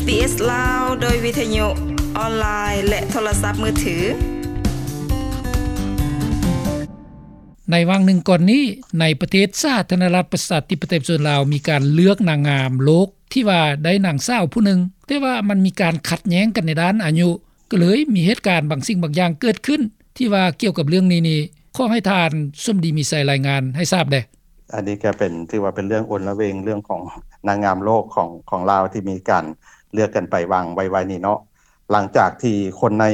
ບີບີຊີ ລາວ ໂດຍວິທະຍຸອອນລາຍ ແລະ ໂທລະສັບມືຖື. ໃນຫວ່າງໜຶ່ງກ່ອນນີ້, ໃນປະເທດສາທາລະນະລັດ ປະຊາທິປະໄຕ ປະຊາຊົນລາວ ມີການເລືອກນາງງາມໂລກ ທີ່ວ່າໄດ້ນາງສາວຜູ້ໜຶ່ງ, ແຕ່ວ່າມັນມີການຂັດແຍ້ງກັນໃນດ້ານອາຍຸ, ກໍເລີຍມີເຫດການບາງສິ່ງບາງຢ່າງເກີດຂຶ້ນ ທີ່ວ່າກ່ຽວກັບເລື່ອງນີ້ນີ້ ຂໍໃຫ້ທ່ານສົມດີມີໄຊລາຍງານໃຫ້ຊາບແດ່. ອັນນີ້ກໍເປັນ ຖືວ່າເປັນເລື່ອງໂອລະເວງ ເລື່ອງຂອງນາງງາມໂລກຂອງ ຂອງລາວ ທີ່ມີການເລືອກກັນໄປຫວ່າງໄວໆນີ້ເນາະ. ຫຼັງຈາກທີ່ຄົນໃນ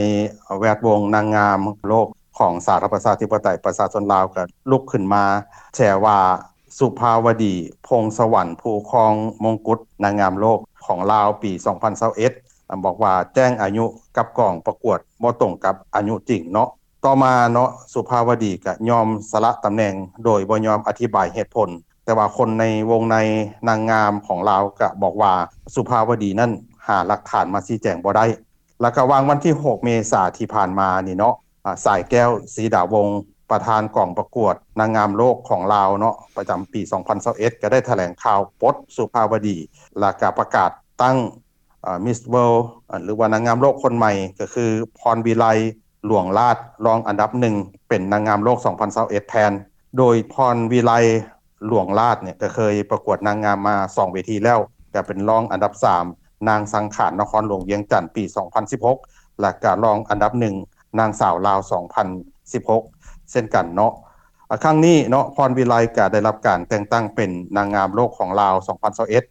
ແວດວົງນາງງາມໂລກຂອງສາທາລະນະລັດ ປະຊາທິປະໄຕ ປະຊາຊົນລາວ ກໍລຸກຂຶ້ນມາແຊວ່າ ສຸພາວະດີ ພົງສະຫວັນ ຜູ້ຄອງມົງກຸດນາງງາມໂລກຂອງລາວປີສອງພັນຊາວເອັດ ບອກວ່າແຈ້ງອາຍຸກັບກອງປະກວດບໍ່ຕົງກັບອາຍຸຈິງເນາະ. ຕໍ່ມາເນາະ ສຸພາວະດີກະຍອມສະຫຼະຕຳແໜ່ງໂດຍບໍ່ຍອມອະທິບາຍເຫດຜົນ, ແຕ່ວ່າຄົນໃນວົງໃນນາງງາມຂອງລາວກະບອກວ່າ ສຸພາວະດີນັ້ນຫາຫຼັກຖານມາຊີ້ແຈງບໍ່ໄດ້. ແລ້ວກະຫວ່າງວັນທີຫົກເມສາທີ່ຜ່ານມານີ້ເນາະ ອາ ສາຍແກ້ວ ສີດາວົງ ປະທານກອງປະກວດນາງງາມໂລກຂອງລາວເນາະ ປະຈຳປີສອງພັນຊາວເອັດ ກໍໄດ້ຖະແຫຼງຂ່າວປົດສຸພາວະດີ ແລ້ວກະປະກາດຕັ້ງ ອາ ມິສເວີລ ອາ ຫຼືວ່ານາງງາມໂລກຄົນໃໝ່ ກໍຄື ພອນວິໄລ ຫຼວງລາດ ລອງອັນດັບໜຶ່ງ ເປັນນາງງາມໂລກສອງພັນຊາວເອັດແທນ. ໂດຍ ພອນວິໄລ ຫຼວງລາດ ເນຍ ກໍເຄີຍປະກວດນາງງາມມາສອງເວທີແລ້ວ ກໍເປັນລອງອັນດັບສາມ, ນາງສັງຂານ ນະຄອນຫຼວງວຽງຈັນ ປີສອງພັນສິບຫົກ ແລ້ວກໍລອງອັນດັບໜຶ່ງ ນາງສາວລາວ ສອງພັນສິບຫົກ ເຊັ່ນກັນເນາະ. ອາ ຄັ້ງນີ້ເນາະ ພອນວິໄລກໍໄດ້ຮັບການແຕ່ງຕັ້ງເປັນນາງງາມໂລກຂອງລາວ ສອງພັນຊາວເອັດ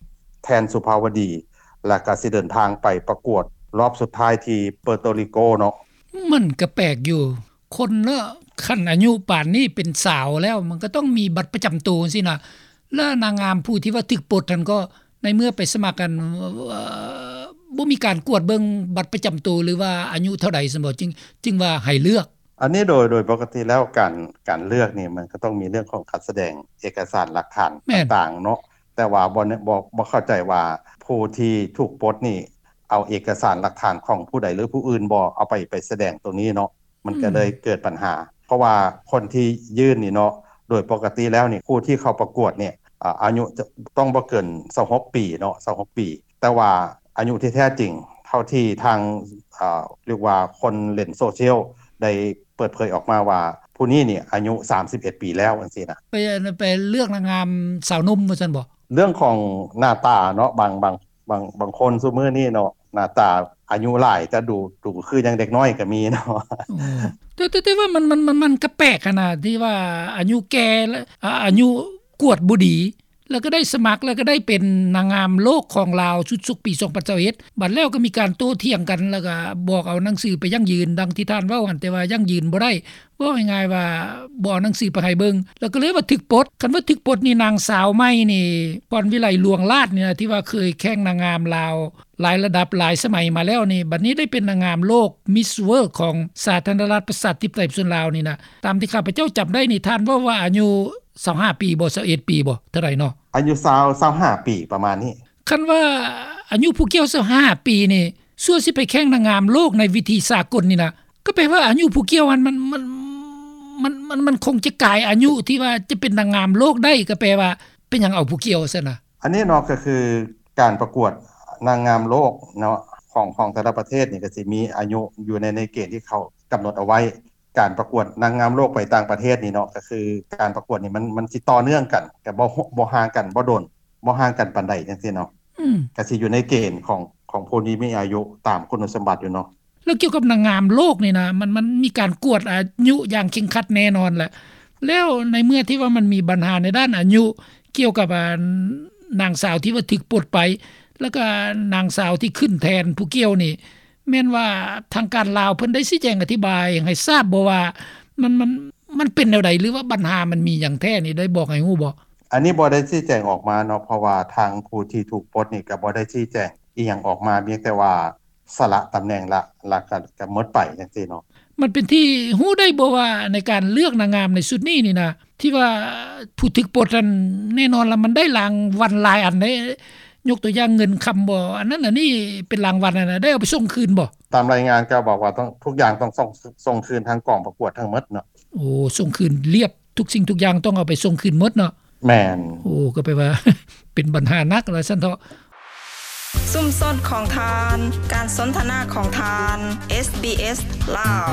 ແທນສຸພາວະດີ ແລ້ວກໍຊິເດີນທາງໄປປະກວດລອບສຸດທ້າຍທີ່ເປີໂຕຣິໂກເນາະ. ມັນກໍແປກຢູ່ ຄົນເນາະ ຄັນອາຍຸປານນີ້ເປັນສາວແລ້ວ ມັນກໍຕ້ອງມີບັດປະຈຳໂຕຊີ້ນະ ແລ້ວນາງງາມຜູ້ທີ່ວ່າຖືກປົດຫັ້ນກໍ ໃນເມື່ອໄປສະໝັກກັນ ເອີ ບໍ່ມີການກວດເບິ່ງບັດປະຈຳໂຕ ຫຼືວ່າອາຍຸເທົ່າໃດຊັ້ນບໍ ຈຶ່ງ ຈຶ່ງວ່າໃຫ້ເລືອກ? ອັນນີ້ໂດຍ ໂດຍປົກກະຕິແລ້ວ ການ ການເລືອກນີ້ ມັນກໍຕ້ອງມີເລື່ອງຂອງການສະແດງເອກະສານຫຼັກຖານ ແມ່ນ ຕ່າງໆເນາະ. ແຕ່ວ່າບໍ່ ບໍ່ ບໍ່ເຂົ້າໃຈວ່າຜູ້ທີ່ຖືກປົດນີ້ ເອົາເອກະສານຫຼັກຖານຂອງຜູ້ໃດ ຫຼື ຜູ້ອື່ນບໍ່ ເອົາໄປ ໄປສະແດງໂຕນີ້ເນາະ. ມັນກໍເລີຍເກີດບັນຫາ ເພາະວ່າຄົນທີ່ຍື່ນນີ້ເນາະ ໂດຍປົກກະຕິແລ້ວນີ້ ຜູ້ທີ່ເຂົ້າປະກວດນີ້ ອາ ອາຍຸຈະຕ້ອງບໍ່ເກີນຊາວຫົກປີເນາະ ຊາວຫົກປີ ແຕ່ວ່າອາຍຸທີ່ແທ້ຈິງ ເທົ່າທີ່ທາງ ອາ ເອີ້ນວ່າຄົນຫຼິ້ນໂຊຊຽວໄດ້ເປີດເຜີຍອອກມາວ່າ ຜູ້ນີ້ນີ້ອາຍຸສາມສິບເອັດປີແລ້ວ ຈັ່ງຊີ້ນະ. ໄປ ໄປເລືອກນາງງາມສາວໜຸ່ມວ່າຊັ້ນບໍ? ເລື່ອງຂອງໜ້າຕາເນາະ ບາງ ບາງ ບາງ ບາງຄົນຊຸມື້ນີ້ເນາະ ໜ້າຕາອາຍຸຫຼາຍ ແຕ່ດູ ດູຄືຍັງເດັກນ້ອຍກໍມີເນາະ. ແຕ່ ແຕ່ ແຕ່ວ່າມັນ ມັນ ມັນ ມັນກໍແປກຫັ້ນນະ ທີ່ວ່າອາຍຸແກ່ ແລະ ອາ ອາຍຸກວດບໍ່ດີ ແລ້ວກໍໄດ້ສະໝັກ ແລ້ວກໍໄດ້ເປັນນາງງາມໂລກຂອງລາວຊຸດສົກປີສອງພັນຊາວເອັດ ບັດແລ້ວກໍມີການໂຕ້ຖຽງກັນ ແລ້ວກໍບອກເອົາໜັງສືໄປຢັ້ງຢືນ ດັ່ງທີ່ທ່ານເວົ້າຫັ້ນ ແຕ່ວ່າຢັ້ງຢືນບໍ່ໄດ້. ເວົ້າງ່າຍໆວ່າບໍ່ເອົາໜັງສືໄປໃຫ້ເບິ່ງ ແລ້ວກໍເລີຍວ່າຖືກປົດ. ຄັນວ່າຖືກປົດນີ້ ນາງສາວໃໝ່ນີ້ ພອນວິໄລ ຫຼວງລາດ ນີ້ນະ ທີ່ວ່າເຄີຍແຂ່ງນາງງາມລາວຫຼາຍລະດັບຫຼາຍສະໄໝມາແລ້ວນີ້ ບັດນີ້ໄດ້ເປັນນາງງາມໂລກ ມິສເວີລ ຂອງສາທາລະນະລັດ ປະຊາທິປະໄຕ ປະຊາຊົນລາວນີ້ນະ ຕາມທີ່ຂ້າພະເຈົ້າຈຳໄດ້ນີ້ ທ່ານເວົ້າວ່າອາຍຸຊາວຫ້າປີບໍ ຊາວເອັດປີບໍ ເທົ່າໃດເນາະ? ອາຍຸຊາວ ຊາວຫ້າປີປະມານນີ້. ຄັນວ່າອາຍຸຜູ້ກ່ຽວຊາວຫ້າປີນີ້ ສ່ວນຊິໄປແຂ່ງນາງງາມໂລກໃນເວທີສາກົນນີ້ນະ ກໍແປວ່າອາຍຸຜູ້ກ່ຽວຫັ້ນ ມັນ ມັນ ມັນ ມັນ ມັນຄົງຈະກາຍອາຍຸທີ່ວ່າຈະເປັນນາງງາມໂລກໄດ້ ກໍແປວ່າເປັນຫຍັງເອົາຜູ້ກ່ຽວຊັ້ນນະ? ອັນນີ້ເນາະ ກໍຄືການປະກວດນາງງາມໂລກເນາະ ຂອງ ຂອງແຕ່ລະປະເທດນີ້ ກໍຊິມີອາຍຸຢູ່ໃນ ໃນເກນທີ່ເຂົາກຳນົດເອົາໄວ້. ການປະກວດນາງງາມໂລກໄປຕ່າງປະເທດນີ້ເນາະ ກໍຄືການປະກວດນີ້ ມັນ ມັນຊິຕໍ່ເນື່ອງກັນ ກໍບໍ່ ບໍ່ຫ່າງກັນ ບໍ່ດົນ ບໍ່ຫ່າງກັນປານໃດ ຈັ່ງຊີ້ເນາະ. ອືມ ກໍຊິຢູ່ໃນເກນຂອງ ຂອງຜູ້ທີ່ມີອາຍຸຕາມຄຸນສົມບັດຢູ່ເນາະ. ແລ້ວກ່ຽວກັບນາງງາມໂລກນີ້ນະ ມັນ ມັນມີການກວດອາຍຸຢ່າງເຄັ່ງຄັດແນ່ນອນແຫຼະ. ແລ້ວໃນເມື່ອທີ່ວ່າມັນມີບັນຫາໃນດ້ານອາຍຸ ກ່ຽວກັບ ອາ ນາງສາວທີ່ວ່າຖືກປົດໄປ ແລ້ວກໍນາງສາວທີ່ຂຶ້ນແທນຜູ້ກ່ຽວນີ້ ແມ່ນວ່າທາງການລາວເພິ່ນໄດ້ຊີ້ແຈງອະທິບາຍໃຫ້ຊາບບໍ່ວ່າ ມັນ ມັນ ມັນເປັນແນວໃດ ຫຼືວ່າບັນຫາມັນມີຫຍັງແທ້ນີ້ ໄດ້ບອກໃຫ້ຮູ້ບໍ່? ອັນນີ້ບໍ່ໄດ້ຊີ້ແຈງອອກມາເນາະ ເພາະວ່າທາງຜູ້ທີ່ຖືກປົດນີ້ກໍບໍ່ໄດ້ຊີ້ແຈງອີ່ຫຍັງອອກມາ ພຽງແຕ່ວ່າສະຫຼະຕຳແໜ່ງລະ ລະກະ ກະໝົດໄປຈັ່ງຊີ້ເນາະ. ມັນເປັນທີ່ຮູ້ໄດ້ບໍ່ວ່າ ໃນການເລືອກນາງງາມໃນຊຸດນີ້ນີ້ນະ ທີ່ວ່າຜູ້ຖືກປົດນັ້ນ ແນ່ນອນລະມັນໄດ້ລາງວັນຫຼາຍອັນເດ້ ຍົກຕົວຢ່າງເງິນຄຳບໍ ອັນນັ້ນອັນນີ້ເປັນລາງວັນຫັ້ນນະ ໄດ້ເອົາໄປສົ່ງຄືນບໍ່? ຕາມລາຍງານກໍບອກວ່າຕ້ອງ ທຸກຢ່າງຕ້ອງສົ່ງ ສົ່ງຄືນທາງກອງປະກວດທັງໝົດເນາະ. ໂອ້ ສົ່ງຄືນລຽບ ທຸກສິ່ງທຸກຢ່າງຕ້ອງເອົາໄປສົ່ງຄືນໝົດເນາະ? ແມ່ນ. ໂອ້ ກໍແປວ່າ ເປັນບັນຫາໜັກວ່າຊັ້ນເຖາະ. ຊຸມຊົນຂອງທ່ານ, ການສົນທະນາຂອງທ່ານ, ເອສບີເອສ ລາວ.